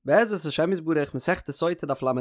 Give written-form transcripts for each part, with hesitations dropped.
בעזרת השם יתברך מסכת סוטה דף ל"ה,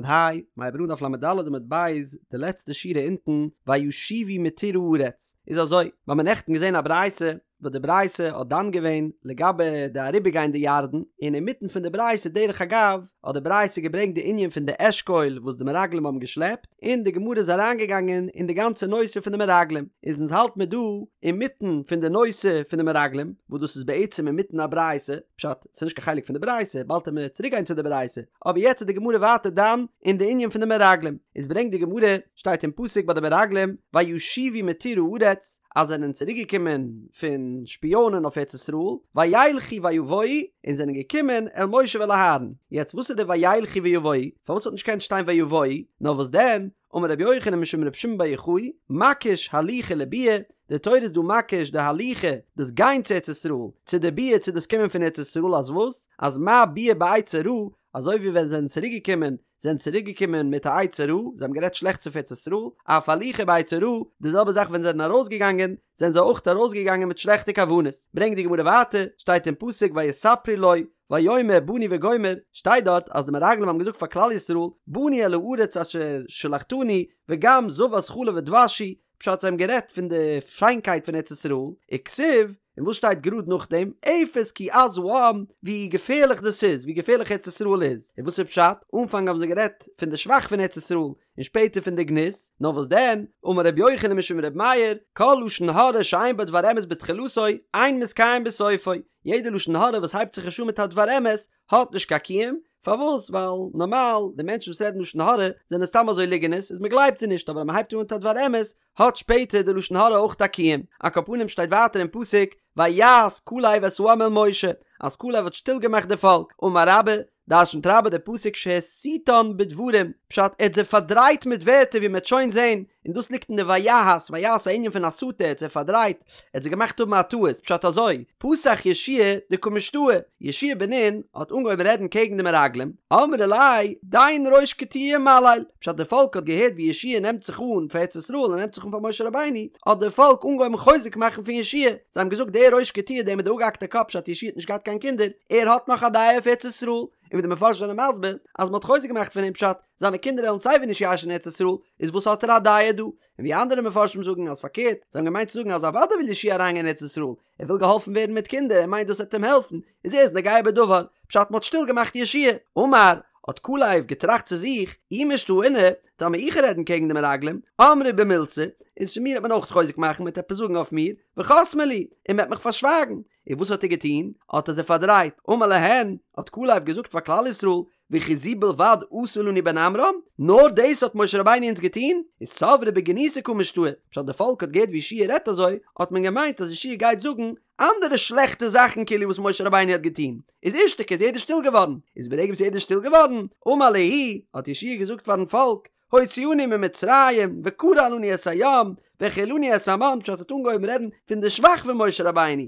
מ'הייבט אן דף ל"ד עמוד ב', די לעצטע שורה אונטן, וישובו מתור הארץ, איז אזוי, מיר האבן נעכטן געזען א ברייתא, וואס די ברייתא האט דן געווען לגבי די אריבערגיין די ירדן, און אינמיטן פון די ברייתא דרך אגב, האט די ברייתא געברענגט די ענין פון די אשכול וואס די מרגלים האבן געשלעפט, און די גמרא איז אריינגעגאנגען אין די גאנצע נושא פון די מרגלים, איז אונז האלט מיר דא אינמיטן פון די נושא פון די מרגלים, וואס דאס איז בעצם אינמיטן א ברייתא, פשט, ס'איז נישט קיין חלק פון די ברייתא, באלד וועט מען צוריק גיין צו די ברייתא, אבער יעצט איז די גמרא ווייטער דן אין די ענין פון די מרגלים, איז ברענגט די גמרא, שטייט אין פסוק ביי די מרגלים, וישובו מתור הארץ, אז זיי זענען צוריק געקומען פון שפיאנען אויף ארץ ישראל, וילכו ויבואו, און זענען געקומען אל משה ואל אהרן, יעצט וואס איז די וילכו ויבואו, פארוואס האט נישט געקענט שטיין ויבואו, נאר וואס דען, אמר רבי יוחנן משום רבי שמעון בר יוחאי, מקיש הליכה לביאה, די תורה איז דא מקיש די הליכה, דאס גיין צו ארץ ישראל, צו די ביאה צו דאס קומען פון ארץ ישראל אז וואס? אז מה ביאה בעצה רעה, אזוי ווי ווען זיי זענען צוריק געקומען, זענען צוריק געקומען מיט א עצה רעה, זיי האבן גערעדט שלעכטס אויף ארץ ישראל, אף הליכה בעצה רעה, די זעלבע זאך ווען זיי זענען ארויס געגאנגען, זענען זיי אויך ארויס געגאנגען מיט שלעכטע כוונות. ברענגט די גמרא ווייטער, שטייט אין פסוק ויספרו לו, ויאמר באנו וגומר, שטייט דארט אז די מרגלים האבן געזאגט פאר כלל ישראל, באנו אל הארץ אשר שלחתנו, וגם זבת חלב ודבש היא, פשט זיי האבן גערעדט פון די שיינקייט פון ארץ ישראל, וכתיב, און וואס שטייט גראד נאכדעם, אפס כי עז העם, ווי געפערליך דאס איז, ווי געפערליך ארץ ישראל איז, און וואס איז פשט, אנפאנג האבן זיי גערעדט פון די שבח פון ארץ ישראל, און שפעטער פון די גנות, נאר וואס דען, אמר רבי יוחנן משום רבי מאיר, כל לשון הרע שאין בו דבר אמת בתחילתו, אין מתקיים בסופו, יעדע לשון הרע וואס הייבט זיך נישט אן מיט א דבר אמת, האט נישט קיין קיום, פארוואס? ווייל נארמאל די מענטשן וואס רעדן לשון הרע זענען סתם אזוי ליגענערס איז מען גלייבט זיי נישט אבער אז מען הייבט אן מיט א דבר אמת האט שפעטער די לשון הרע אויך א קיום. על כל פנים שטייט ווייטער אין פסוק ויהס כלב את העם אל משה אז כלב האט שטיל געמאכט די פאלק, אמר רבה, דרשנט רבה די פסוק שהסיתן בדברים, פשט ער האט זיי פארדרייט מיט ווערטער ווי מען וועט שוין זען, און דאס ליגט אין די ויהס, ויהס א ענין פון הסתה, ער האט זיי פארדרייט, ער האט זיי געמאכט האבן א טעות, פשט אזוי, פתח יהושע דקא משתעי, יהושע בן נון האט אנגעהויבן רעדן קעגן די מרגלים, אמרו ליה, דין ראש קטיעה ומליל, פשט די פאלק האט געהערט ווי יהושע נעמט זיך אן פאר ארץ ישראל און נעמט זיך אן פאר משה רבינו, האט די פאלק אנגעהויבן חוזק מאכן פון יהושע, זיי האבן געזאגט דער ראש קטיעה דער מיט די אפגעהאקטע קאפ פשט יהושע האט נישט געהאט קיין קינדער, ער האט נאך א דעה אויף ארץ ישראל, און ווי די מפרשים זענען מסביר אז מען האט חוזק געמאכט פון אים פשט, זיינע קינדער וועלן סייווי נישט ירש'ן ארץ ישראל, איז וואס האט ער א דעה דא? און ווי אנדערע מפרשים זאגן אז פארקערט, זיי האבן געמיינט צו זאגן אז אוודאי וויל יהושע אריינגיין אין ארץ ישראל, ער וויל געהאלפן ווערן מיט קינדער, ער מיינט דאס וועט אים העלפן, איז ער איז נוגע בדבר, פשט מ'האט שטיל געמאכט יהושע. אמר, האט כלב געטראכט צו זיך, אי משתעינא, טאמער איך רעדן קעגן די מרגלים, אמרי בי מילתא, איז פון מיר וועט מען אויך חוזק מאכן, מ'וועט עפעס זאגן אויף מיר, וחסמי לי, און מ'וועט מיך פארשווייגן. און וואס האט ער געטון? האט ער זיי פארדרייט. אמר להן, האט כלב געזאגט פאר כלל ישראל, וכי זו בלבד עשה לנו בן עמרם? נאר דאס האט משה רבינו אונז געטון? איז סברי בגנותיה קא משתעי, פשט די פאלק האט געהערט ווי יהושע רעדט אזוי, האט מען געמיינט אז יהושע גייט זאגן אנדערע שלעכטע זאכן כאילו וואס משה רבינו האט געטון, איז אישתיקו איז יעדער שטיל געווארן, איז ברגע וואס יעדער איז שטיל געווארן, אמר להו, האט יהושע געזאגט פארן פאלק, הוציאנו ממצרים, וקרע לנו את הים, והאכילנו את המן, פשט האט אנגעהויבן רעדן פון די שבח פון משה רבינו,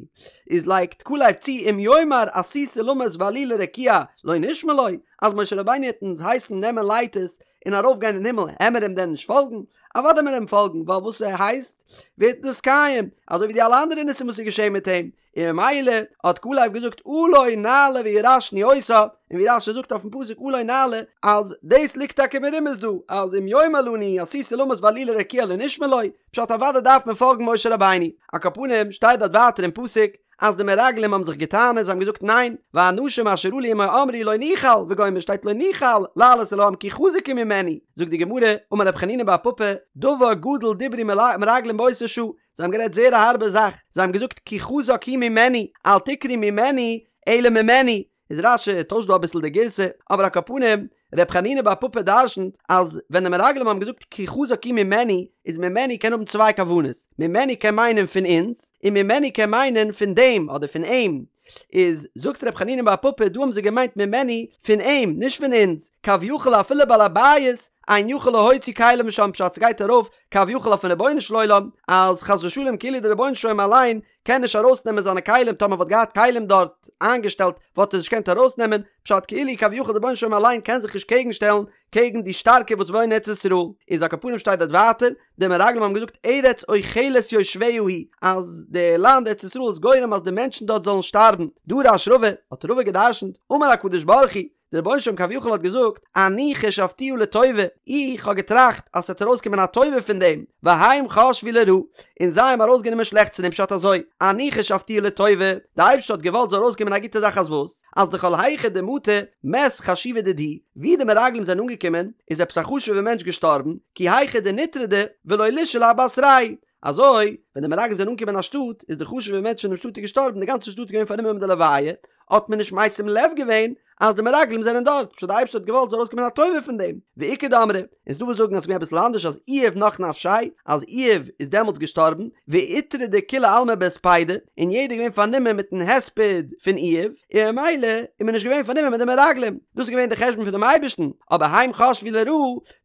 איז לייגט כלב צו אם יאמר עשו סולמות ועלו לרקיע לא נשמע לו, אז משה רבינו העט אונז הייסן נעמען לייטערס און ארויף גיין אין הימל העמער אים דען נישט פאלגן? אוודאי מיר אים פאלגן ווייל וואס ער הייסט ווערט נתקיים, אזוי ווי די אלע אנדערע ניסים וואס איז געשען מיט אים, און ממילא האט כלב געזאגט עלה נעלה וירשנו אותה, און ווי רש"י זאגט אויפן פסוק עלה נעלה אז דאס ליגט טאקע מרומז דא אז אם יאמר לנו עשו סולמות ועלו לרקיע לא נשמע לו, פשט אוודאי דארף מען פאלגן משה רבינו. על כל פנים שטייט דארט ווייטער אין פסוק אז די מרגלים האבן זיך געטענה'ט זיי האבן געזאגט ניין, והאנשים אשר עלו עמו אמרו לא נוכל וגומר שטייט לא נוכל לעלות אל העם כי חזק הוא ממנו, זאגט די גמרא, אמר רב חנינא בר פפא, דבר גדול דברו מרגלים באותה שעה, זיי האבן גערעדט זייער א הארבע זאך, זיי האבן געזאגט כי חזק הוא ממנו, אל תקרי ממנו, אלא ממנו, איז רש"י טוישט דא אביסל די גירסא, אבער על כל פנים, ר' חנינא בר פפא דרשנ'ט אז ווען די מרגלים האבן געזאגט כי חזק הוא ממנו, איז ממנו קען האבן צוויי כוונות, ממנו קען מיינען פון אונז, און ממנו קען מיינען פון דעם אדער פון אים, איז זאגט ר' חנינא בר פפא דא האבן זיי געמיינט ממנו פון אים נישט פון אונז, כביכול אפילו בעל הבית אין יכול להוציא כליו משם פשט ס'גייט ארויף כביכול אויפן רבונו של עולם אז חס ושלום כאילו דער רבונו של עולם אליין קען נישט ארויסנעמען זיינע כלים טאמער וואלט געהאט כלים דארט איינגעשטעלט וואלט ער נישט געקענט ארויסנעמען פשט כאילו כביכול דער רבונו של עולם אליין קען זיך נישט קעגן שטעלן קעגן די שטארקע וואס וואוינען אין ארץ ישראל איז על כל פנים שטייט דארט ווייטער די מרגלים האבן געזאגט ארץ אוכלת יושביה היא אז די לאנד ארץ ישראל איז גורם אז די מענטשן דארט זאלן שטארבן דרש רבא האט רבא געדרשנט אמר הקדוש ברוך הוא. דער רבונו של עולם כביכול האט געזאגט, אני חשבתיה לטובה, איך האב געטראכט אז ס'וועט ארויסקומען א טובה פון דעם, והם חשבו לרעה, און זיי האבן ארויסגענומען שלעכטס פון דעם פשט אזוי, אני חשבתיה לטובה, די אייבערשטער האט געוואלט זאל ארויסקומען א גוטע זאך אז וואס? אז דכל היכא דמטו מת חשיבא דידהו, ווי די מרגלים זענען אנגעקומען איז עפעס א חשוב'ע מענטש געשטארבן, כי היכי דניטרדו ולא לישאלו אבתרייהו, אזוי ווען די מרגלים זענען אנגעקומען אין א שטאט איז די חשוב'ע מענטש פון דעם שטאט איז געשטארבן די גאנצע שטאט איז געווען פארנומען מיט די לוויה, האט מען נישט משים לב געווען אז די מרגלים זענען דארט, פשט די אייבערשטער האט געוואלט זאל ארויסקומען א טובה פון דעם, ואיכא דאמרי, און ס'דא וואס זאגן אז ס'איז געווען אביסל אנדערש אז איוב נח נפשיה, אז איוב איז דעמאלטס געשטארבן, ואיטרדו כולי עלמא בהספידא, און יעדער איז געווען פארנומען מיטן הספד פון איוב, און ממילא איז מען נישט געווען פארנומען מיט די מרגלים, דאס איז געווען די חשבון פונעם אייבערשטן, אבער הם חשבו לרעה,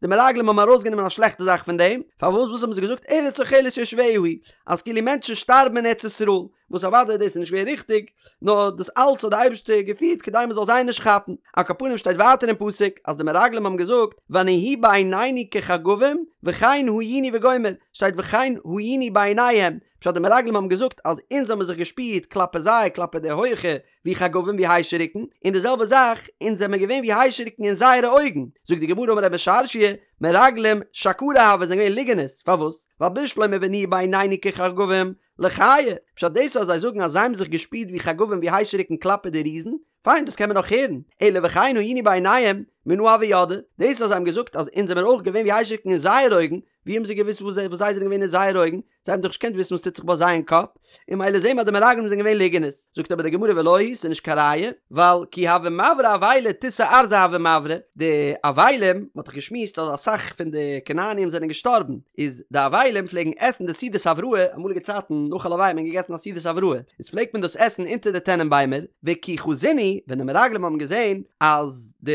די מרגלים האבן ארויסגענומען א שלעכטע זאך פון דעם, פארוואס וואס האבן זיי געזאגט ארץ אוכלת יושביה היא, אז כאילו מענטשן שטארבן אין ארץ ישראל, וואס אוודאי דאס איז נישט געווען ריכטיג, נאר דאס אלץ האט די אייבערשטער געפירט כדי מען זאל זיי נישט כאפן. על כל פנים שטייט ווייטער אין פסוק אז די מרגלים האבן געזאגט ונהי בעינינו כחגבים וכן היינו וגומר, שטייט וכן היינו בעיניהם, פשט די מרגלים האבן געזאגט אז אונז האבן זיך געשפירט כלפי זיי כלפי די הויכע ווי חגבים ווי היישעריקן, און די זעלבע זאך אונז זעמער געווען ווי היישעריקן אין זייערע אויגן, זאגט די גמרא אמר רב משרשיא, מרגלים שקרי הוו זענען געווען ליגענערס, פארוואס? ווייל בשלמא ונהי בעינינו כחגבים, לחיי, פשט דאס אז זיי זאגן אז זיי האבן זיך געשפירט ווי חגבים ווי היישעריקן כלפי די ריזן, פיין דאס קען מען נאך הערן, אלא וכן היינו בעיניהם, מנא הוו ידעי, דאס אז זיי האבן געזאגט אז אונז זעמער אויך געווען ווי היישעריקן אין זייער אויגן, ווי האבן זיי געוואוסט וואס זיי זענען געווען אין זייער אויגן? זיי האבן דאך נישט געקענט וויסן וואס טוט זיך ביי זיי אין קאפ, און ממילא זעהן מיר אז די מרגלים זענען געווען ליגענערס. זאגט אבער די גמרא ולא היא, ס'איז נישט קיין ראיה, ווייל כי הוו מברי אבילי תותי ארזי הוו מברי, די אבלים, מען האט דאך געשמועסט אז אסאך פון די כנעניים זענען געשטארבן, איז די אבלים פלעגן עסן די סעודת הבראה, אמאליגע צייטן נאך א לוויה האט מען געגעסן א סעודת הבראה, איז פלעגט מען דאס עסן אונטער די טענען ביימער, וכי חזינהו, ווען די מרגלים האבן געזען אז די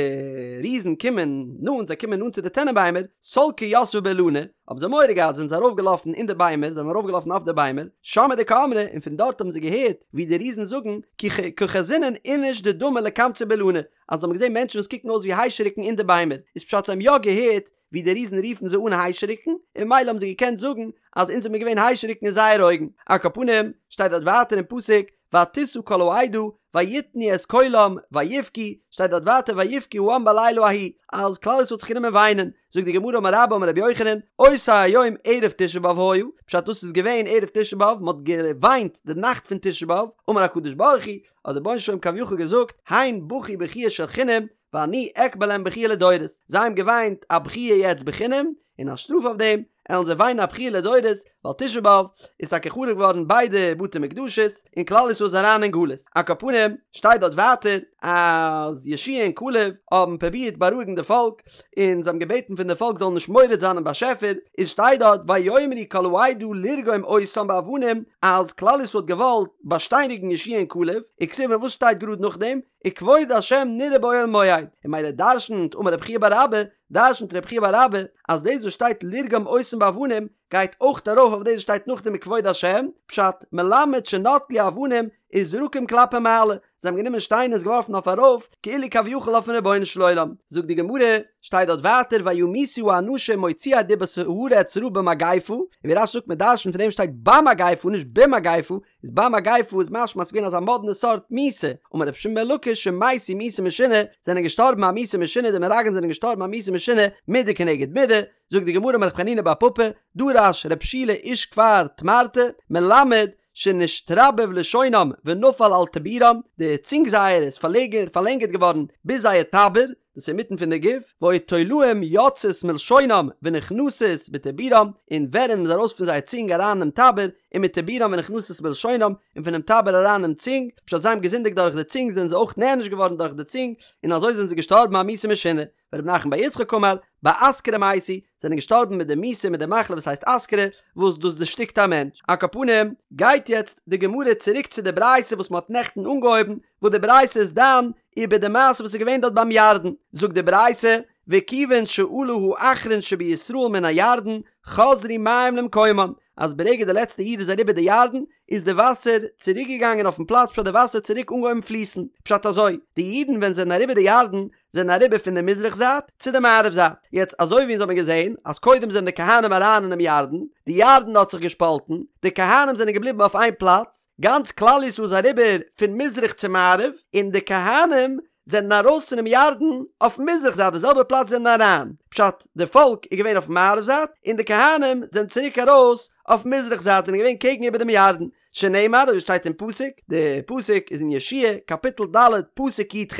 ריזן קומען נאנט, זיי קומען נאנט צו די טענען ביימער, סלקי יתבי באילני, האבן זיי מורא געהאט זענען זיי ארויפגעלאפן אין די ביימער, זיי זענען ארויפגעלאפן אויף די ביימער, שמעי דקאמרי, און פון דארט האבן זיי געהערט ווי די ריזן זאגן, כי קא חזינן איניש דדמי לקמצא באילני, אז זיי האבן געזען מענטשן וואס קוקן אויס ווי היישעריקן אין די ביימער, איז פשט זיי האבן יא געהערט ווי די ריזן רופן זיי אן היישעריקן, און ממילא האבן זיי געקענט זאגן אז אונז זעמיר געווען היישעריקן אין זייערע אויגן. על כל פנים, שטייט דארט ווייטער אין פסוק, ותשא כל העדה ויתנו את קולם ויבכו, שטייט דארט ווייטער ויבכו העם בלילה ההוא, אז כלל ישראל האט זיך גענומען וויינען, זאגט די גמרא אמר רבה אמר רבי יוחנן, אותו היום ערב תשעה באב היה, פשט דאס איז געווען ערב תשעה באב, מען האט געוויינט די נאכט פון תשעה באב, אמר הקדוש ברוך הוא, האט דער רבונו של עולם כביכול געזאגט, הן בכו בכיה של חינם, ואני אכבה להם בכיה לדורות, זיי האבן געוויינט א בכיה יעצט בחינם, און א שטראף אויף דעם, עלן זיי וויינען א בכיה לדורות, ווייל תשעה באב איז טאקע חרוב געווארן ביידע בתי מקדשות, און כלל ישראל איז אריין אין גלות. על כל פנים, שטייט דארט ווייטער, אז יהושע און כלב האבן פרובירט בארואיגן די פאלק, און זיי האבן געבעטן פון די פאלק זאלן נישט מורד זיין אין באשעפער, איז שטייט דארט ויאמרו כל העדה לרגום אותם באבנים, אז כלל ישראל האט געוואלט באשטייניגן יהושע און כלב, וכתיב און וואס שטייט גראד נאכדעם? וכבוד השם נראה באוהל מועד, און ממילא דרשנ'ט אמר רב חייא בר אבא, דרשנ'ט רב חייא בר אבא, אז דאס וואס שטייט לרגום אותם באבנים גייט אויך ארויף אויף דאס וואס שטייט נאכדעם וכבוד השם, פשט, מלמד שנטלו אבנים וזרקום כלפי מעלה, זיי האבן גענומען שטיינער און עס געווארפן אויף ארויף, כאילו כביכול אויפן רבונו של עולם. זאגט די גמרא, שטייט דארט ווייטער וימותו האנשים מוציאי דיבת הארץ רעה במגפה, און ווי רש"י זאגט מען דרשנ'ט פון דעם שטייט במגפה נישט במגפה, איז במגפה איז משמע אז ס'איז געווען אזא מאדנע סארט מיתה, אמר רבי שמעון בן לקיש שמתו מיתה משונה, זענען געשטארבן א מיתה משונה, די מרגלים זענען געשטארבן א מיתה משונה, מידה כנגד מידה, זאגט די גמרא אמר רב חנינא בר פפא, דרש רב שילא איש כפר תמרתא, מלמד שנשתרבב לשונם ונפל על טבורם, די צונג זייערע איז פארלענגערט געווארן ביז זייער טבור, דאס איז אינמיטן פון די גוף, והיו תולעים יוצאות מלשונם ונכנסות בטבורם, און ווערים איז ארויס פון זייער צונג אריין אינעם טבור, ומטבורם ונכנסות בלשונם, און פונעם טבור אריין אינעם צונג, פשט זיי האבן געזינדיגט דורך די צונג זענען זיי אויך נענש געווארן דורך די צונג, און אזוי זענען זיי געשטארבן א מיתה משונה. ורב נחמן בר יצחק אמר, באסכרה מתו, זענען געשטארבן מיט די מיתה מיט די מחלה וואס הייסט אסכרה, וואס דאס דערשטיקט א מענטש. על כל פנים, גייט יעצט די גמרא צוריק צו די ברייתא וואס מען האט נעכטן אנגעהויבן, וואס די ברייתא איז דן איבער די מעשה וואס איז געווען דארט ביים ירדן, זאגט די ברייתא, וכיוון שעלה האחרון שבישראל מן הירדן, חזרו מים למקומן, אז ברגע די לעצטע איד איז אריבער די ירדן, איז די וואסער צוריק געגאנגען אויפן פלאץ פשט די וואסער צוריק אנגעהויבן פליסן, פשט אזוי, די אידן ווען זיי זענען אריבער די ירדן, זענען אריבער פון די מזרח זייט צו די מערב זייט, יעצט אזוי ווי אונז האבן געזען אז קודם זענען די כהנים אריין אינעם ירדן, די ירדן האט זיך געשפאלטן, די כהנים זענען געבליבן אויף איין פלאץ, גאנץ כלל ישראל איז אריבער פון מזרח צו מערב, און די כהנים. זענען ארויס פונעם ירדן אויף מזרח זייט די זעלבע פלאץ זענען אריין, פשט, די פאלק איז געווען אויף מערב זייט און די כהנים זענען צוריק ארויס אויף מזרח זייט זענען געווען קעגן איבער דעם ירדן, שנאמר אזוי שטייט אין פסוק, די פסוק איז אין יהושע קאפיטל ד' פסוק י"ח,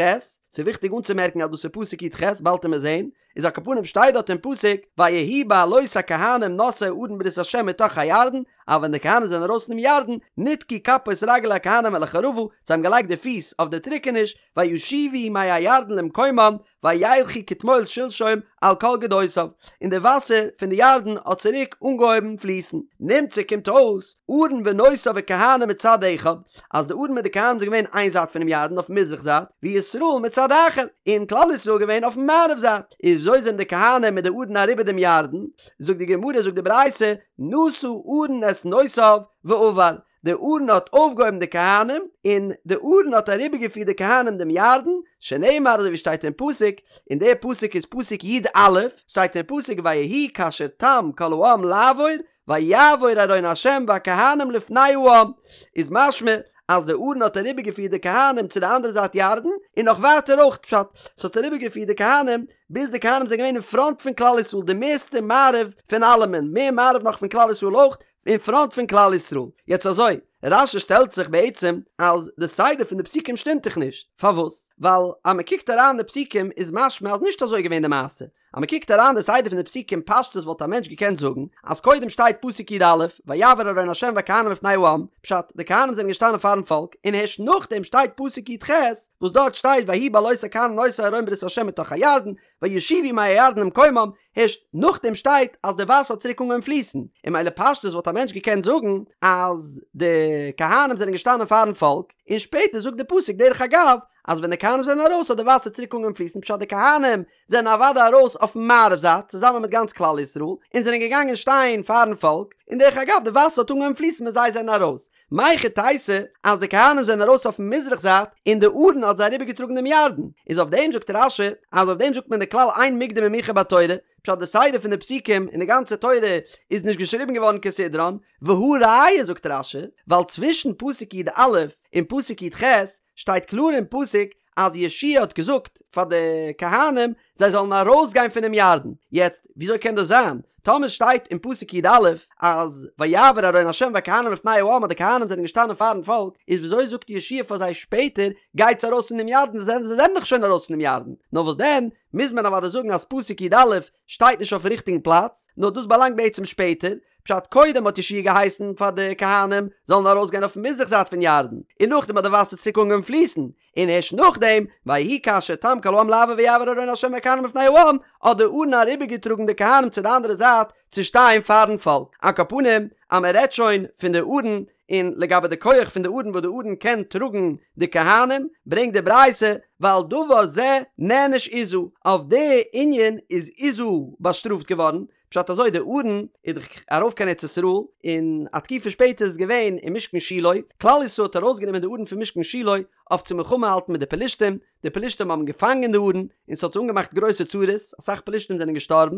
ס'איז וויכטיג אנצומערקן אז דאס איז פסוק י"ח, באלד וועט מען זען, איז על כל פנים שטייט דארט אין פסוק ויהי בעלות הכהנים נושאי ארון ברית ה' מתוך הירדן, אז ווען די כהנים זענען ארויס פונעם ירדן, נתקו כפות רגלי הכהנים אל החרבה, זיי האבן געלייגט די פיס אויף די טריקעניש, וישובו מי הירדן למקומם, וילכו כתמול שלשום על כל גדותיו, און די וואסער פון די ירדן האט צוריק אנגעהויבן פליסן. נמצא קומט אויס, ארון ונושאיו וכהנים מצד אחד, אז די ארון מיט די כהנים זענען געווען איין זייט פונעם ירדן אויפן מזרח זייט, וישראל מצד אחר, און כלל ישראל געווען אויפן מערב זייט. איז וויאזוי זענען די כהנים מיט די ארון אריבער דעם ירדן? זאגט די גמרא, זאגט די ברייתא, נשא ארון את נושאיו ועבר, די ארון האט אויפגעהויבן די כהנים, און די ארון האט אריבערגעפירט די כהנים דעם ירדן, שנאמר אזוי ווי שטייט אין פסוק, און דער פסוק איז פסוק י"א, שטייט אין פסוק ויהי כאשר תם כל העם לעבור, ויעבור ארון ה' והכהנים לפני העם, איז משמע אז די ארון האט אריבערגעפירט די כהנים צו די אנדערע זייט ירדן, און נאך ווייטער אויך, פשט, ס'האט אריבערגעפירט די כהנים ביז די כהנים זענען געווען אין פראנט פון כלל ישראל, די מערסטע מערב פון אלעמען, מער מערב נאך פון כלל ישראל אויך, אין פראנט פון כלל ישראל. יעצט אזוי, רש"י שטעלט זיך בעצם אז די סדר פון די פסוקים שטימט דאך נישט. פארוואס? ווייל אז מען קוקט אריין די פסוקים איז משמע אז נישט אזוי געווען די מעשה. אז מען קוקט אריין די סדר פון די פסוקים פשטות וואלט א מענטש געקענט זאגן אז קודם שטייט פסוק י"א ויעבור ארון ה' והכהנים לפני העם, פשט, די כהנים זענען געשטאנען פארן פאלק, און הערשט נאכדעם שטייט פסוק י"ח וואס דארט שטייט ויהי בעלות הכהנים נושאי ארון ברית ה' מתוך הירדן וישובו מי הירדן למקומם, הערשט נאכדעם שטייט אז די וואסער האט צוריק אנגעהויבן פליסן, און ממילא פשטות וואלט א מענטש געקענט זאגן אז די כהנים זענען געשטאנען פארן פאלק, און שפעטער זאגט די פסוק דרך אגב אז ווען די כהנים זענען ארויס האט די וואסער צוריק אנגעהויבן פליסן פשט די כהנים זענען אוודאי ארויס אויפן מערב זייט צוזאמען מיט גאנץ כלל ישראל און זענען געגאנגען שטיין פארן פאלק, און דרך אגב די וואסער האט אנגעהויבן פליסן ווען זיי זענען ארויס, מהיכי תיתי אז די כהנים זענען ארויס אויפן מזרח זייט און די ארון האט זיי אריבערגעטראגן דעם ירדן, איז אויף דעם זאגט רש"י אז אויף דעם זאגט מען די כלל אין מוקדם ומאוחר בתורה, פשט די סדר פון די פסוקים אין די גאנצע תורה איז נישט געשריבן געווארן כסדרן, והא ראיה זאגט רש"י ווייל צווישן פסוק י"א און פסוק י"ח שטייט קלאר אין פסוק אז יהושע האט געזאגט פאר די כהנים זיי זאלן ארויסגיין פונעם ירדן, יעצט וויאזוי קען דאס זיין טאמער שטייט אין פסוק י"א אז ויעבור ארון ה' והכהנים לפני העם אז די כהנים זענען געשטאנען פארן פאלק, איז וויאזוי זאגט יהושע פאר זיי שפעטער גייטס ארויס פון דעם ירדן זיי זענען דאך שוין ארויס פונעם ירדן, נאר וואס דען מוז מען אוודאי זאגן אז פסוק י"א שטייט נישט אויפן ריכטיגן פלאץ, נאר דאס באלאנגט בעצם שפעטער, פשט קודם האט יהושע געהייסן פאר די כהנים זאלן ארויסגיין אויפן מזרח זייט פון ירדן, און נאכדעם האט די וואסער צוריק אנגעהויבן פליסן, און הערשט נאכדעם, ויהי כאשר תם כל העם לעבור ויעבור ארון ה' והכהנים לפני העם, האט די ארון אריבערגעטראגן די כהנים צו די אנדערע זייט צו שטיין פארן פאלק. על כל פנים, אז מען רעדט שוין פון די ארון, און לגבי די כח פון די ארון וואס די ארון קען טראגן די כהנים, ברענגט די ברייתא, ועל דבר זה נענש עוזא, אויף די ענין איז עוזא באשטראפט געווארן, פשט אזוי די ארון איז דאך ארויף קיין ארץ ישראל און א תקופה שפעטער איז געווען אין משכן שילה, כלל ישראל האט ארויסגענומען די ארון פון משכן שילה אויף צו מלחמה האלטן מיט די פלישתים, די פלישתים האבן געפאנגען די ארון און ס'האט זיי אנגעמאכט גרויסע צרות, אסאך פלישתים זענען געשטארבן,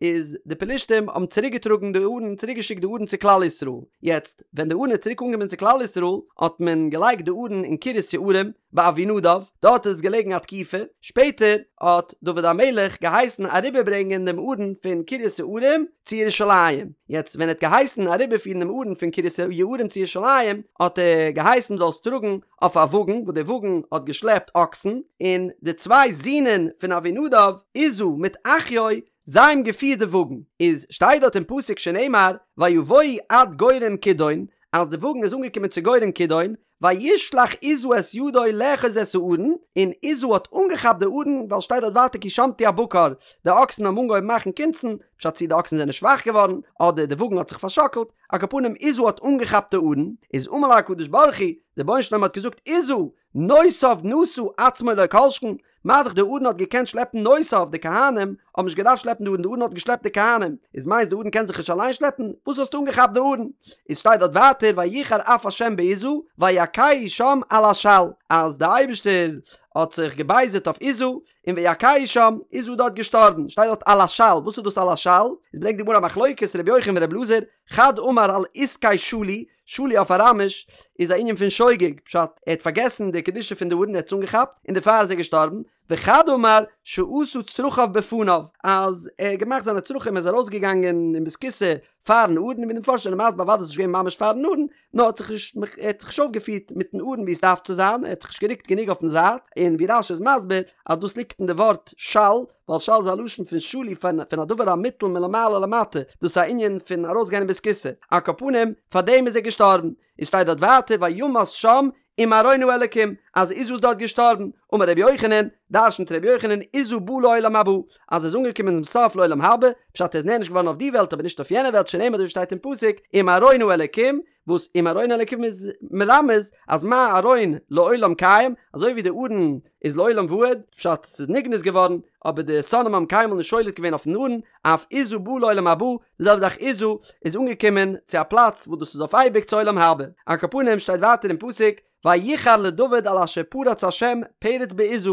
איז די פלישתים האבן צוריק געטראגן די ארון צוריק געשיקט די ארון צו כלל ישראל, יעצט ווען די ארון איז צוריק אנגעקומען צו כלל ישראל האט מען געלייגט די ארון אין קרית יערים, ביי אבינדב, דארט איז עס געלעגן א תקופה, שפעטער האט דוד המלך געהייסן אריבערברענגען דעם ארון פון קרית יערים צו ירושלים, יעצט ווען ער האט געהייסן אריבערפירן דעם ארון פון קרית יערים צו ירושלים, האט ער געהייסן מ'זאל עס טראגן אויף א וואגן, וואס דער וואגן האט געשלעפט אקסן, און די צוויי זינען פון אבינדב, עוזא מיט אחיו, זיי האבן געפירט די וואגן, איז שטייט דארט אין פסוק שנאמר ויבואו עד גורן כידון, אז די וואגן איז אנגעקומען צו גורן כידון, וישלח עוזא את ידו לאחוז את הארון, און עוזא האט אנגעכאפט די ארון, ווייל שטייט דארט ווייטער כי שמטו הבקר, די אקסן האבן אנגעהויבן מאכן קונצן, פשט צי די אקסן זענען שוואך געווארן, אדער די וואגן האט זיך פארשאקלט, על כל פנים עוזא האט אנגעכאפט די ארון, איז אמר לו הקדוש ברוך הוא, דער רבונו של עולם האט געזאגט עוזא, נושאיו נשא עצמו לא כל שכן, מה דאך די ארון האט געקענט שלעפן נושאיו, די כהנים האבן נישט געדארפט שלעפן די ארון, די ארון האט געשלעפט די כהנים, איז מיינסט די ארון קען זיך נישט אליין שלעפן? וואס האסטו אנגעכאפט די ארון? איז שטייט דארט ווייטער ויחר אף השם בעוזא ויכהו שם על השל, אז די אייבערשטער האט זיך געבייזערט אויף עוזא, און ויכהו שם, עוזא איז דארט געשטארבן, שטייט דארט על השל, וואס איז דאס על השל? איז ברענגט די גמרא א מחלוקת ר' יוחנן ור' אלעזר, חד אמר על עסקי שלו, שלו אויף אראמיש איז א ענין פון שוגג, פשט, ער האט פארגעסן די קדושה פון די ארון ער האט עס אנגעכאפט, און דערפאר איז ער געשטארבן, וחד אמר שעשה צרכיו בפניו, אז ער האט געמאכט זיינע צרכים ער איז ארויסגעגאנגען אין בית הכסא פארן ארון, און ווי די מפרשים זענען מסביר אוודאי איז נישט געווען ממש פארן ארון, נאר האט זיך נישט ער האט זיך נישט אויפגעפירט מיטן ארון ווי עס דארף צו זיין, ער האט זיך נישט גערוקט גענוג אויפן זייט, און ווי רש"י איז מסביר אז דאס ליגט אין די ווארט של, ווייל של איז א לשון פון שלו פון פון א דבר המוטל מלמעלה למטה, דאס איז א ענין פון ארויסגיין אין בית הכסא, על כל פנים פאר דעם איז ער געשטארבן, און שטייט דארט ווייטער וימת שם עם ארון האלקים, אז עוזא איז דארט געשטארבן, אמר רבי יוחנן, דרשנ'ט רבי יוחנן עוזא בא לעולם הבא, אז ער איז אנגעקומען צום סוף לעולם הבא, פשט ער איז נענש געווארן אויף די וועלט אבער נישט אויף יענע וועלט שנאמר אזוי ווי שטייט אין פסוק עם ארון האלקים, וואס עם ארון האלקים איז מרמז אז מה ארון לעולם קיים, אזוי ווי די ארון איז לעולם ועד, פשט ס'איז נגנז געווארן, אבער די שונאים האבן קיינמאל נישט שולט געווען אויפן ארון, אף עוזא בא לעולם הבא, די זעלבע זאך עוזא איז אנגעקומען צו א פלאץ וואס דאס איז אויף אייביג צו עולם הבא. על כל פנים שטייט ווייטער אין פסוק ויחר לדוד על אשר פרץ השם פרץ בעוזא,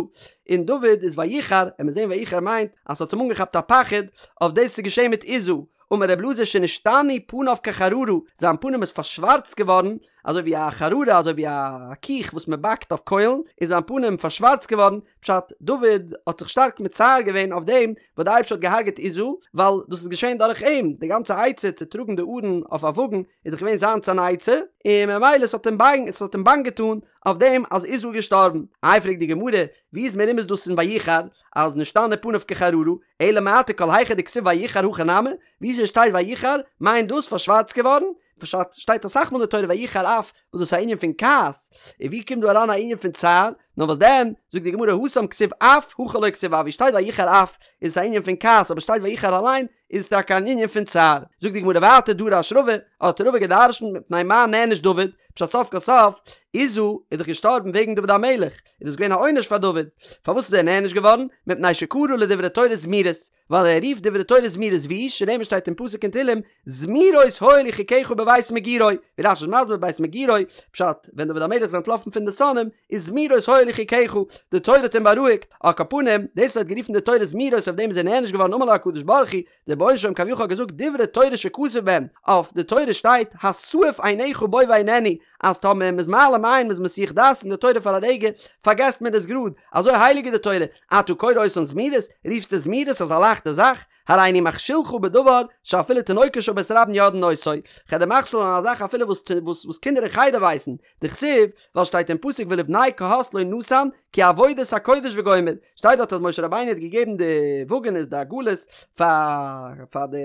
און דוד איז ויחר, און מיר זעהן ויחר מיינט אז ס'האט אים אנגעכאפט א פחד אויף דאס וואס איז געשעהן מיט עוזא, אמר ר' אלעזר שנשתנו פניו כחררה, זיין פנים איז פארשווארצט געווארן אזוי ווי א חררה אזוי ווי א קיך וואס מען באקט אויף קוילן, איז זיין פנים פארשווארצט געווארן, פשט, דוד האט זיך שטארק מצער געווען אויף דעם וואס די אייבערשטער האט געהארגעט עוזא, ווייל דאס איז געשען דורך אים, די גאנצע עצה צו טראגן די ארון אויף א וואגן איז דאך געווען זיינס אן עצה, און ממילא עס האט אים באנג עס האט אים באנג געטאן אויף דעם אז עוזא איז געשטארבן. איי פרעגט די גמרא, ווי איז מרומז דאס אין ויחר אז נשתנו פניו כחררה, אלא מעתה כל היכא דכתיב ויחר הכי נמי, ווי ס'שטייט ויחר מיינט דאס פארשווארצט געווארן, פשט, שטייט אסאך מאל אין די תורה ויחר אף, וואס דאס איז א ענין פון כעס, און ווי קומט דא אריין א ענין פון צער, נאר וואס דען, זאגט די גמרא התם כתיב אף, הכא לא כתיב אף, ווי שטייט ויחר אף, איז עס א ענין פון כעס, אבער שטייט ויחר אליין, איז עס טאקע אן ענין פון צער. זאגט די גמרא ווייטער דרש רבא, האט רבא געדרשנט מפני מה נענש דוד, פשט סוף כל סוף, עוזא איז דאך געשטארבן וועגן דוד המלך, איז דאס געווען א עונש פאר דוד, פארוואס איז ער נענש געווארן, מפני שקרא לדברי תורה זמירות, ווייל ער רופט דברי תורה זמירות ווי שנאמר שטייט אין פסוק אין תהלים זמירות היו לי חוקיך בבית מגורי, ווי רש"י איז מסביר בית מגורי, פשט, ווען דוד המלך איז אנטלאפן פון די שונאים, איז זמירות היו לי חוקיך, די תורה האט אים בארואיגט, על כל פנים, דאס וואס ער האט גערופן די תורה זמירות אויף דעם איז ער נענש געווארן אמר לו הקדוש ברוך הוא, דער רבונו של עולם כביכול האט געזאגט דברי תורה שכתוב בהן, אויף די תורה שטייט הסעף עיניך בו ואיננו, אז טאמער מ'איז מעלים עין מ'איז מסיח דעת פון די תורה פאר א רגע, פארגעסט מען עס גראד, אזוי הייליג איז די תורה, אתה קורא אותן זמירות, רופסט עס זמירות אזא לייכטע זאך? הריני מכשילך בדבר שאפילו תינוקות של בית רבן יודעין אותו, כ'וועל דיר מכשיל זיין א זאך אפילו וואס וואס קינדער אין חדר ווייסן, דכתיב, ווייל שטייט אין פסוק ולבני קהת לא נתן כי עבודת הקודש וגומר, שטייט דארט אז משה רבינו האט געגעבן די וואגענעס די עגלות פאר פאר די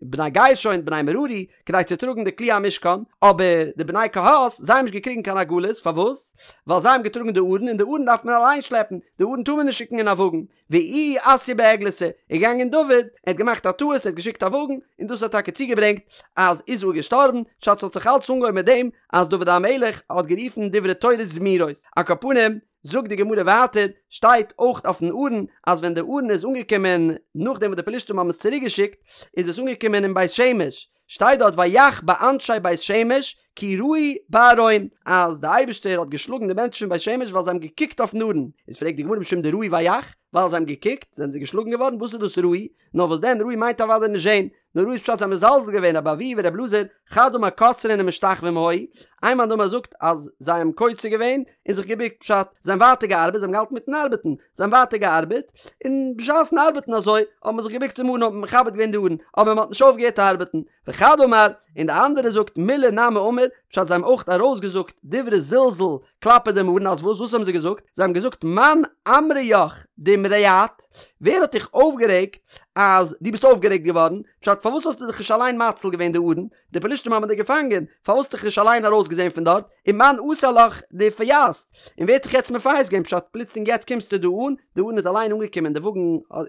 בני גרשון בני מררי כדי צו טראגן די כלי המשכן, אבער די בני קהת זיי האבן נישט געקריגן קיין עגלות, פארוואס? ווייל זיי האבן געטראגן די ארון און די ארון דארף מען אליין שלעפן, די ארון טאר מען נישט שיקן אין א וואגן, ואיהו אתייה בעגלתא, איז געגאנגען דוד, ער האט געמאכט א טעות, ער האט געשיקט א וואגן, און דאס האט טאקע צוגעברענגט אז עוזא איז געשטארבן, פשט ס'האט זיך אלץ אנגעהויבן מיט דעם אז דוד המלך האט גערופן דברי תורה זמירות, על כל פנים, זאגט די גמרא ווייטער, שטייט אויך אויפן ארון, אז ווען די ארון איז אנגעקומען נאכדעם וואס די פלישתים האבן עס צוריק געשיקט, איז עס אנגעקומען אין בית שמש, שטייט דארט ויך באנשי בית שמש כי ראו בארון, אז די אייבערשטער האט געשלאגן די מענטשן פון בית שמש ווייל זיי האבן געקוקט אויפן ארון, איז פרעגט די גמרא משום דראו ויך, ווייל זיי האבן געקוקט זענען זיי געשלאגן געווארן, וואס איז דאס ראו? נאר וואס דען ראו מיינט אוודאי נישט זען, נאר ראו איז פשט זיי האבן מזלזל געווען רבי אבהו ורבי אלעזר חד אמר קוצרין ומשתחווים היו, איין מאן דאמר זאגט אז זיי האבן קוצר געווען און זיך געבוקט פשט זיי האבן ווייטער געארבעט זיי האבן געהאלטן מיטן ארבעטן זיי האבן ווייטער געארבעט און בשעת'ן ארבעטן אזוי האט מען זיך געבוקט צום ארון האט מען מכבד געווען די ארון אבער מען האט נישט אויפגעהערט ארבעטן וחד אמר און די אנדערע זאגט מילי נמי אמור פשט זיי האבן אויך ארויסגעזאגט דברי זלזול כלפי דעם ארון אז וואס וואס האבן זיי געזאגט זיי האבן געזאגט מאן אמריך דאמרעת ווער האט דיך אויפגערעגט אז דו ביסט אויפגערעגט געווארן פשט פארוואס האסטו דיך נישט אליין מציל געווען די ארון די פלישתים האבן דיך געפאנגען פארוואס האסטו דיך נישט אליין ארויסגעזען פון דארט ומאן אסר לך דאפייסת און ווער האט דיך יעצט מפייס געווען פשט פלוצלינג יעצט קומסטו דא אן די ארון איז אליין אנגעקומען די וואגן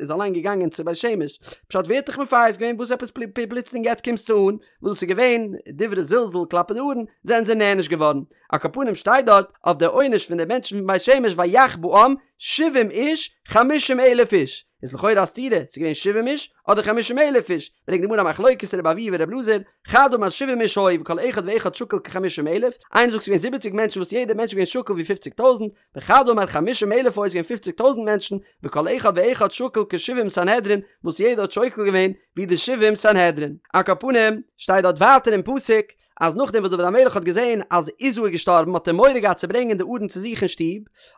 איז אליין געגאנגען צו בית שמש פשט ווער האט דיך מפייס געווען וואס עפעס פלוצלינג יעצט קומסטו אן וואס דאס איז געווען דברי זלזול כלפי די ארון זענען זיי נענש געווארן על כל פנים שטייט דארט אויף די עונש פון די מענטשן פון בית שמש ויך בעם שבעים איש חמישים אלף איש. איז לכאורה א סתירה, ס'איז געווען שבעים איש אדער חמישים אלף איש, ברענגט די גמרא א מחלוקת רבי אבהו ורבי אלעזר, חד אמר שבעים איש היו וכל אחד ואחד שקול כחמישים אלף, איינער זאגט ס'איז געווען זיבעציג מענטשן וואס יעדער מענטש איז געווען שקול ווי פופציג טויזנט, וחד אמר חמישים אלף היו ס'איז געווען פופציג טויזנט מענטשן, וכל אחד ואחד שקול כשבעים סנהדרין, וואס יעדער האט שוקל געווען ווי די שבעים סנהדרין. על כל פנים, שטייט דארט ווייטער אין פסוק, אז נאכדעם וואס דוד המלך האט געזען אז עוזא איז געשטארבן האט ער מורא געהאט צו ברענגען די ארון צו זיך אין שטוב,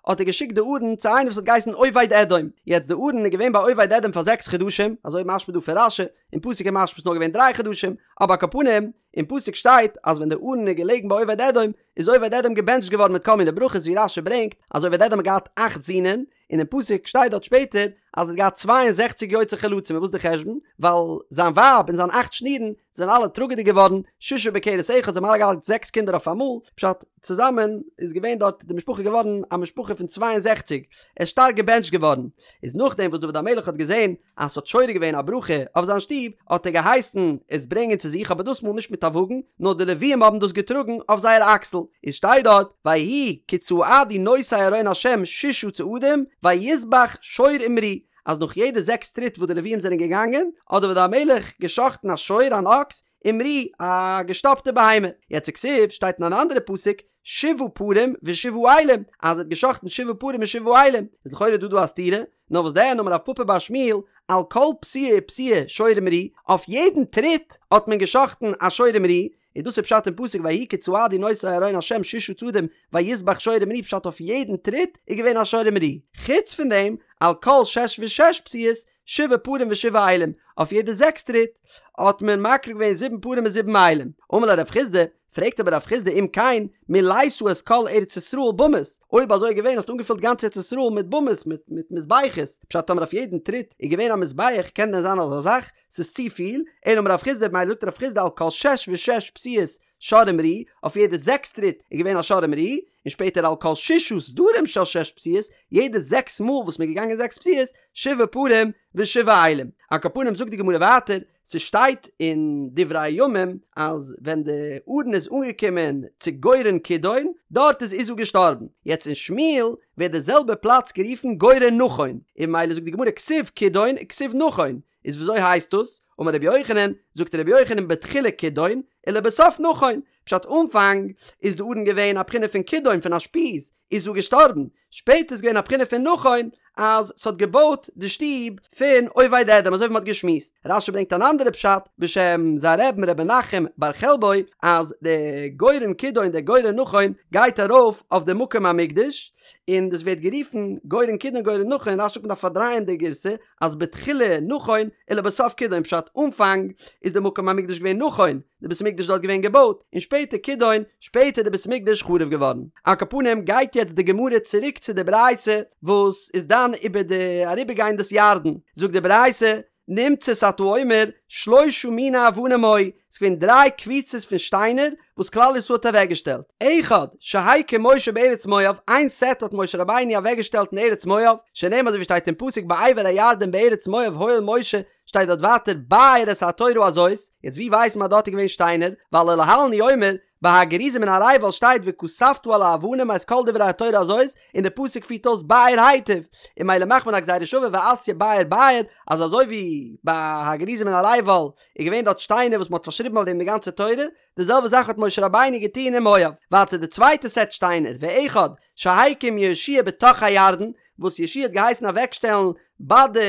האט ער געשיקט די ארון צו איינער וואס האט געהייסן עובד אדום, יעצט די ארון איז געווען ביי עובד אדום פאר זעקס חדשים, אזוי משמע דא פון רש"י, אין פסוק איז משמע ס'איז נאר געווען דריי חדשים, אבער על כל פנים, אין פסוק שטייט אז ווען די ארון איז געלעגן ביי עובד אדום, איז עובד אדום געבענטשט געווארן מיט כל מיני ברכות ווי רש"י ברענגט אז עובד אדום האט געהאט אכט זינען, און אין פסוק שטייט דארט שפעטער אז ער האט געהאט צוויי און זעכציק יוצאי חלצים און וואס איז די חשבון? ווייל זיין ווייב און זיין אכט שנירן זענען אלע טראגעדיג געווארן, ששה בכרס אחד, זיי האבן אלע געהאט זעקס קינדער אויף אמאל, פשט, צוזאמען איז געווען דארט די משפחה געווארן א משפחה פון צוויי און זעכציק, ער איז שטארק געבענטשט געווארן, איז נאכדעם וואס דוד המלך האט געזען אז ס'האט שורה געווען א ברכה אויף זיין שטוב, האט ער געהייסן עס ברענגען צו זיך, אבער דאס מאל נישט מיט א וואגן, נאר די לוויים האבן דאס געטראגן אויף זייער אקסל. איז שטייט דארט, ויהי כי צעדו נושאי ארון השם ששה צעדים, ויזבח שור ומרי, אז נאך יעדע זעקס טריט וואס די לוויים זענען געגאנגען, האט דוד המלך גע'שחט'ן א שור, אן אקס, ומרי, א געשטאפטע בהמה. יעצט וכתיב, שטייט אין אן אנדערע פסוק, שבעה פרים ושבעה אילים, אז ער האט גע'שחט'ן שבעה פרים און שבעה אילים, איז לכאורה דא דא א סתירה, נאר וואס דען אמר רב פפא בר שמואל, על כל פסיעה ופסיעה שור ומרי, אויף יעדן טריט האט מען גע'שחט'ן א שור ומרי, און דאס איז פשט אין פסוק ויהי כי צעדו נושאי ארון השם ששה צעדים ויזבח שור ומרי פשט אויף יעדן טריט איז געווען א שור ומרי, חוץ פון דעם על כל שש ושש פסיעות שבעה פרים ושבעה אילים, אויף יעדע זעקס טריט האט מען מקריב געווען זיבן פרים און זיבן אילים. אמר ליה רב חסדא, פרעגט אבער רב חסדא אם כן מילאת את כל ארץ ישראל במות, אויב אזוי איז געווען האסטו אנגעפילט גאנץ ארץ ישראל מיט במות מיט מיט מזבחות, פשט טאמער אויף יעדן טריט איז געווען א מזבח קען דען זיין אזא זאך? ס'איז צופיל, אלא אמר רב חסדא ממילא זאגט רב חסדא על כל שש ושש פסיעות שור ומרי, אויף יעדע זעקס טריט איז געווען א שור ומרי, און שפעטער על כל ששה סדרים של שש פסיעות, יעדע זעקס מאל וואס מ'איז געגאנגען זעקס פסיעות, שבעה פרים ושבעה אילים. על כל פנים זאגט די גמרא ווייטער, ס'שטייט אין דברי הימים אז ווען די ארון איז אנגעקומען צו גורן כידון, דארט איז עוזא געשטארבן. יעצט אין שמואל ווערט די זעלבע פלאץ גערופן גורן נכון, און ממילא זאגט די גמרא כתיב כידון וכתיב נכון, איז וויאזוי הייסט דאס? אמר רבי יוחנן, זאגט רבי יוחנן בתחילה כידון, ולבסוף נכון, פשט אנפאנג איז די ארון געווען א בחינה פון כידון פון א שפיז, איז עוזא געשטארבן, שפעטער איז געווען א בחינה פון נכון אז ס'האט געבויט די שטוב פון עובד אדום אזוי ווי מ'האט געשמועסט. רש"י ברענגט אן אנדערע פשט בשם זיין רבי'ן ר' מנחם בר חלבו אז די גורן כידון די גורן נכון גייט ארויף אויף די מקום המקדש און דאס ווערט גערופן גורן כידון גורן נכון רש"י זאגט מ'דארף פארדרייען די גירסא אז בתחילה נכון ולבסוף כידון פשט אנפאנג איז די מקום המקדש געווען נכון די בית המקדש דארט געווען געבויט און שפעטער כידון שפעטער די בית המקדש חרוב געווארן. על כל פנים גייט יעצט די גמרא צוריק צו די ברייתא וואס איז דן איבער די אריבערגיין דאס ירדן זאגט די ברייתא נמצאת אתה אומר שלושה מיני אבנים היו ס'איז געווען דריי קבוצות פון שטיינער וואס כלל ישראל האט אוועקגעשטעלט, אחד, שהקים משה בארץ מואב, איין סעט האט משה רבינו אוועקגעשטעלט אין ארץ מואב, שנאמר אזוי ווי שטייט אין פסוק בעבר הירדן בארץ מואב הואיל משה, שטייט דארט ווייטער באר את התורה הזאת, יעצט ווי ווייסט מען אז דארט איז געווען שטיינער, ווייל ולהלן הוא אומר, ביי הר גריזים און הר עיבל שטייט וכתבת על האבנים את כל דברי התורה הזאת, און די פסוק פירט אויס באר היטב, און ממילא מאכט מען א גזירה שווה ואתיא באר באר, אז אזוי ווי ביי הר גריזים און הר עיבל איז געווען דארט שטיינער וואס מען האט פארשריבן אויף דעם די גאנצע תורה, די זעלבע זאך האט משה רבינו געטון אין מואב. ווייטער די צווייטע סעט שטיינער, ואחד שהקים יהושע בתוך הירדן, וואס יהושע האט געהייסן אוועקשטעלן ביי די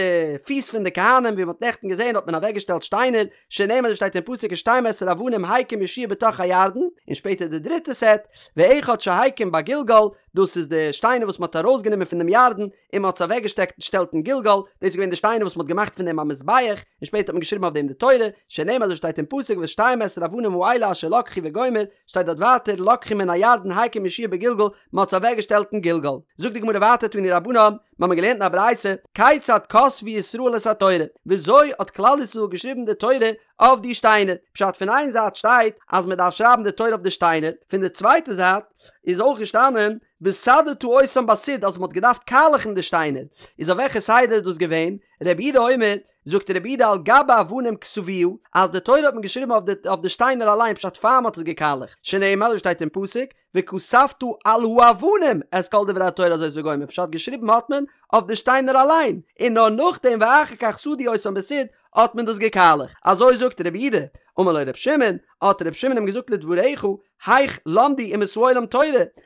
פיס פון די כהנים, ווי מען האט נעכטן געזען האט מען אוועקגעשטעלט שטיינער, שנאמר אזוי שטייט אין פסוק ושתים עשרה אבנים הקים יהושע בתוך הירדן, און שפעטער די דריטע סעט, ואחד שהקים בגלגל, דאס איז די שטיינער וואס מען האט ארויסגענומען פון דעם ירדן, און מען האט עס אוועקגעשטעקט שטעלט אין גלגל, דאס איז געווען די שטיינער וואס מען האט געמאכט פון דעם א מזבח, און שפעטער האט מען געשריבן אויף דעם די תורה, שנאמר אזוי שטייט אין פסוק ואת שתים עשרה אבנים האלה אשר לקחו וגומר, שטייט דארט ווייטער לקחו מן הירדן הקים יהושע בגלגל, מען האט עס אוועקגעשטעלט אין גלגל. זאגט די גמרא ווייטער תנו רבנן, מיר האבן געלערנט אין א ברייתא, כיצד כתבו ישראל את התורה, וויאזוי האט כלל ישראל געשריבן די תורה אויף די שטיינער, פשט פון איין זייט שטייט אז מען דארף שרייבן די תורה אויף די שטיינער, פון די צווייטע זייט איז אויך געשטאנען וסדת אותם בסיד אז מען האט געדארפט קאלעכן די שטיינער, איז אויף וועלכע סדר איז דאס געווען? רבי יהודה אומר, זאגט רבי יהודה על גבי אבנים כתבוה, אז די תורה האט מען געשריבן אויף די אויף די שטיינער אליין פשט פאר מען האט עס געקאלעכט, שנאמר אזוי שטייט אין פסוק, וכתבת על האבנים את כל דברי התורה הזאת וגומר, פשט געשריבן האט מען אויף די שטיינער אליין, און נאר נאכדעם ואחר כך סדו אותם בסיד האט מען דאס געקאלעכט, אזוי זאגט רבי יהודה, אמר לו רבי שמעון, האט רבי שמעון אים געזאגט לדבריך, היאך למדו אומות העולם תורה,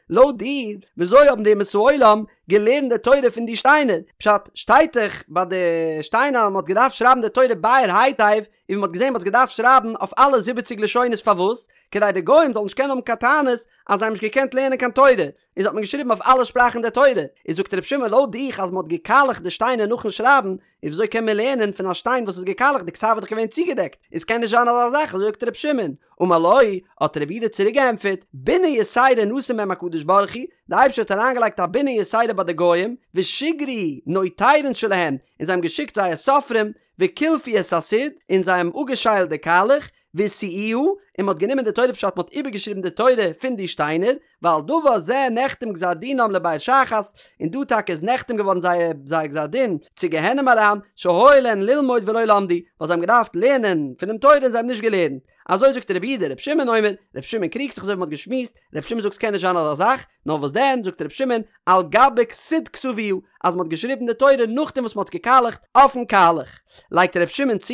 לויט דיר, וויאזוי האבן די אומות העולם געלערנט די תורה פון די שטיינער? פשט, שטייט דאך ביי די שטיינער אז מען האט געדארפט שרייבן די תורה באר היטב, און ווי מען האט געזען מען האט עס געדארפט שרייבן אויף אלע זיבעציג לשונות פארוואס? כדי די גוים זאלן נישט קענען האבן קיין טענות אז זיי האבן נישט געקענט לערנען קיין תורה, איז האט מען געשריבן אויף אלע שפראכן די תורה, איז זאגט רבי שמעון לויט דיך אז מען האט געקאלעכט די שטיינער נאכן שרייבן, איז וויאזוי קען מען לערנען פון א שטיין וואס איז געקאלעכט די כתב איז דאך געווען צוגעדעקט, איז קען נישט זיין אזא זאך אזוי זאגט רבי שמעון, אמר לו, האט רבי יהודה צוריק געענטפערט, בינה יתירה נתן בהם הקדוש ברוך הוא, די אייבערשטער האט אריינגעלייגט א בינה יתירה ביי די גוים, ושיגרו נוטרין שלהן, און זיי האבן געשיקט זייער סופרים, וקילפו את הסיד, און זיי האבן אפגעשיילט די קאלעך, והשיאוה, און מען האט גענומען די תורה פשט מען האט איבערגעשריבן די תורה פון די שטיינער, ועל דבר זה נחתם גזר דינם לבאר שחת, און דא טאקע איז נחתם געווארן זייער זייער גזר דין צו גיהנום אריין, שהיה להן ללמוד ולא למדו, ווייל זיי האבן געדארפט לערנען פונעם תורה און זיי האבן נישט געלערנט. אזוי זאגט רבי יהודה, רבי שמעון אומר, רבי שמעון קריגט זיך אזוי ווי מען האט געשמועסט, רבי שמעון זאגט ס'קען נישט זיין אזא זאך, נאר וואס דען, זאגט רבי שמעון, על גבי סיד כתבוה, אז מען האט געשריבן די תורה נאכדעם וואס מען האט עס געקאלעכט אויפן קאלעך. לייגט רבי שמעון צו,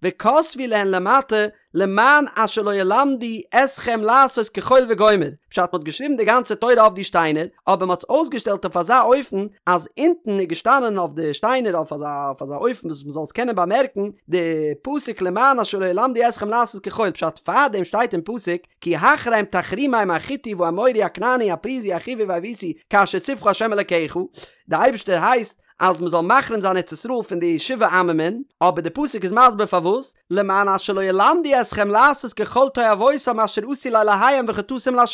וכתבו להן למטה למען אשר לא ילמדו אתכם לעשות כחול וגומר, פשט מ'האט געשריבן די גאנצע תורה אויף די שטיינער, אבער מ'האט עס אויסגעשטעלט אויף אזא אופן אז אונטן איז געשטאנען אויף די שטיינער אויף אזא אויף אזא אופן וואס מ'זאל עס קענען באמערקן די פסוק למען אשר לא ילמדו אתכם לעשות כחול, פשט פארדעם שטייט אין פסוק כי החרם תחרימם החתי והאמורי הכנעני הפריזי החוי והיבוסי כאשר צוך ה' אלקיך, די אייבערשטער הייסט אז מען זאל מחרים זיין ארץ ישראל פון די שבעה עממין, אבער די פסוק איז מסביר פארוואס, למען אשר לא ילמדו אתכם לעשות ככל תועבותם אשר עשו לאלהיהם וחטאתם לה',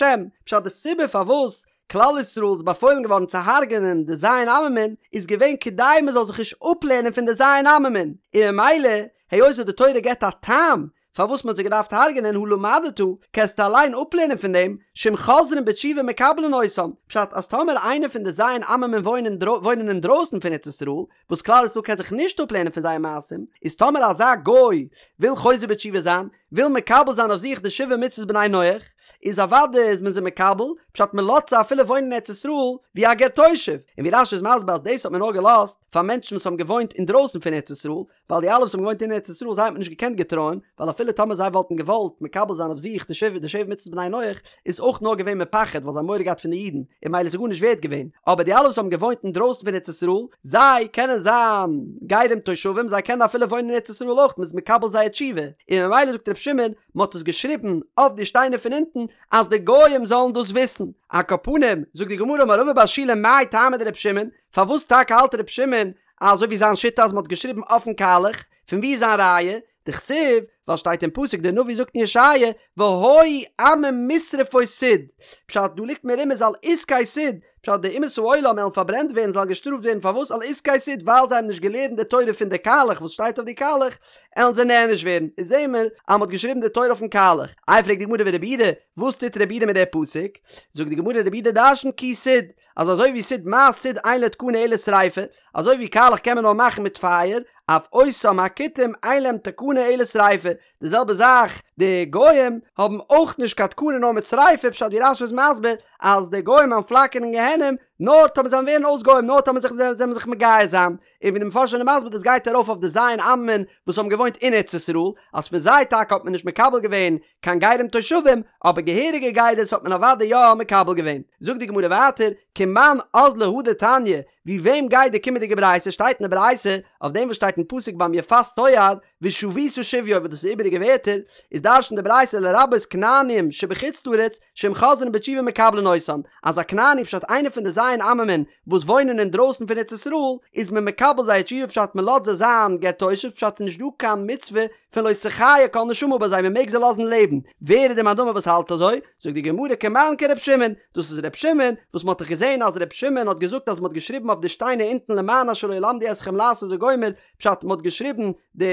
פשט די סיבה פארוואס כלל ישראל איז באפוילן געווארן צו הרג'נען די ז' עממין איז געווען כדי מען זאל זיך נישט אפלערנען פון די ז' עממין, און ממילא היות וואס די תורה געבט א טעם פארוואס מען האט זיי געדארפט הרג'נען הא למדת, קענסטו אליין אפלערנען פון דעם, שאם חוזרין בתשובה מקבלין אותם, פשט אז טאמער איינער פון די ז' עממין וואוינען וואוינען אינדרויסן פון ארץ ישראל, וואס כלל ישראל קען זיך נישט אפלערנען פון זייער מעשים, איז טאמער אזא גוי וויל חוזר בתשובה זיין, וויל מקבל זיין אויף זיך די שבע מצוות בני נח, איז אוודאי איז מען זיי מקבל, פשט מען לאזט זיי אפילו וואוינען אין ארץ ישראל ווי א גר תושב, און ווי רש"י איז מסביר אז דאס האט מען נאר געלאזט פאר מענטשן וואס האבן געוואוינט אינדרויסן פון ארץ ישראל, ווייל די אלע וואס האבן געוואוינט אין ארץ ישראל זיי האט מען נישט געקענט געטרויען, ווייל אפילו טאמער זיי וואלטן געוואלט מקבל זיין אויף זיך די שבע די שבע מצוות בני נח, איז אויך נאר געווען מפחד ווייל זיי האבן מורא געהאט פון די אידן, און ממילא איז עס גארנישט ווערט געווען, אבער די אלע וואס האבן געוואוינט אינדרויסן פון ארץ ישראל, זיי קענען זיין גרים תושבים, זיי קענען אפילו וואוינען אין ארץ ישראל אויך, מען איז מקבל זייער תשובה, און ממילא זאגט רבי שמעון, מען האט עס געשריבן אויף די שטיינער פון אונטן, אז די גויים זאלן דאס וויסן. על כל פנים, זאגט די גמרא אמר רבא בר שילא מאי טעמא דרבי שמעון, פארוואס טאקע האלט רבי שמעון אזוי ווי זיין שיטה אז מען האט געשריבן אויפן קאלעך, פון ווי איז זיין ראיה? דכתיב, ווייל שטייט אין פסוק דער נביא זאגט אין ישעיה והיו עמים משרפות סיד, פשט דא ליגט מרומז על עסקי סיד, פשט די אומות העולם וועלן פארברענט ווערן זאלן געשטראפט ווערן פארוואס על עסקי סיד ווייל זיי האבן נישט געלערנט די תורה פון די קאלעך וואס שטייט אויף די קאלעך עלן זיי נענש ווערן, איז זעהן מיר אז מען האט געשריבן די תורה אויפן קאלעך, איי פרעגט די גמרא ורבי יהודה וואס טוט רבי יהודה מיט די פסוק? זאגט די גמרא רבי יהודה דרשנט כי סיד, אז אזוי ווי סיד מה סיד אין לו תקנה אלא שריפה, אזוי ווי קאלעך קען מען נאר מאכן מיט פייער, אף אותם הכותים אין להם תקנה אלא שריפה, די זעלבע זאך די גוים האבן אויך נישט קיין תקנה נאר מיט שריפה, פשט ווי רש"י איז מסביר אז די גוים וועלן פלאקערן אין גיהנום נאר טאמער זיי ווערן אויס גוים נאר טאמער זיך זיי וועלן זיך מגייר זיין, און ווי די מפרשים זענען מסביר דאס גייט ארויף אויף די ז' עממין וואס האבן געוואוינט אין ארץ ישראל, אז פון זיי טאקע האט מען נישט מקבל געווען קיין גרים תושבים, אבער געהעריגע גירות האט מען אוודאי יא מקבל געווען. זאגט די גמרא ווייטער, כמאן אזלא הא דתניא, ווי וועם גייט די קומענדיגע ברייתא, שטייט אין די ברייתא, אויף דעם וואס שטייט אין פסוק ביים יפת תואר, ושבית שביו וואס דאס איז איבעריגע ווערטער, איז דרש'נט די ברייתא לרבות כנעניים שבחוץ לארץ, שאם חוזרין בתשובה מקבלין אותן, אז א כנעני פשט איינער פון די ז' עממין וואס וואוינען אינדרויסן פון ארץ ישראל, איז מען מקבל זייער תשובה פשט מען לאזט זיי זיין גר תושב פשט ס'איז נישט דא קיין מצוה פון לא תחיה כל נשמה ביי זיי מען מעג זיי לאזן לעבן, ווער איז די מאן דאמר וואס האלט אזוי? זאגט די גמרא כמאן כר' שמעון, דאס איז ר' שמעון, וואס מען האט דאך געזען אז ר' שמעון האט געזאגט אז מען האט געשריבן אויף די שטיינער אונטן למען אשר לא ילמדו אתכם לעשות וגומר, פשט מען האט געשריבן די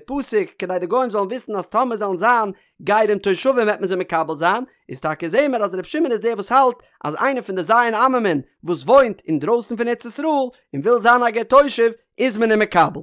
פסוק כדי די גוים זאלן וויסן אז טאמער זאלן זיין גרים תושבים וועט מען זיי מקבל זיין, איז טאקע זעהן מיר אז ר' שמעון איז דער וואס האלט אז איינער פון די ז' עממין וואס וואוינט אינדרויסן פון ארץ ישראל און וויל זיין א גר תושב איז מען אים מקבל.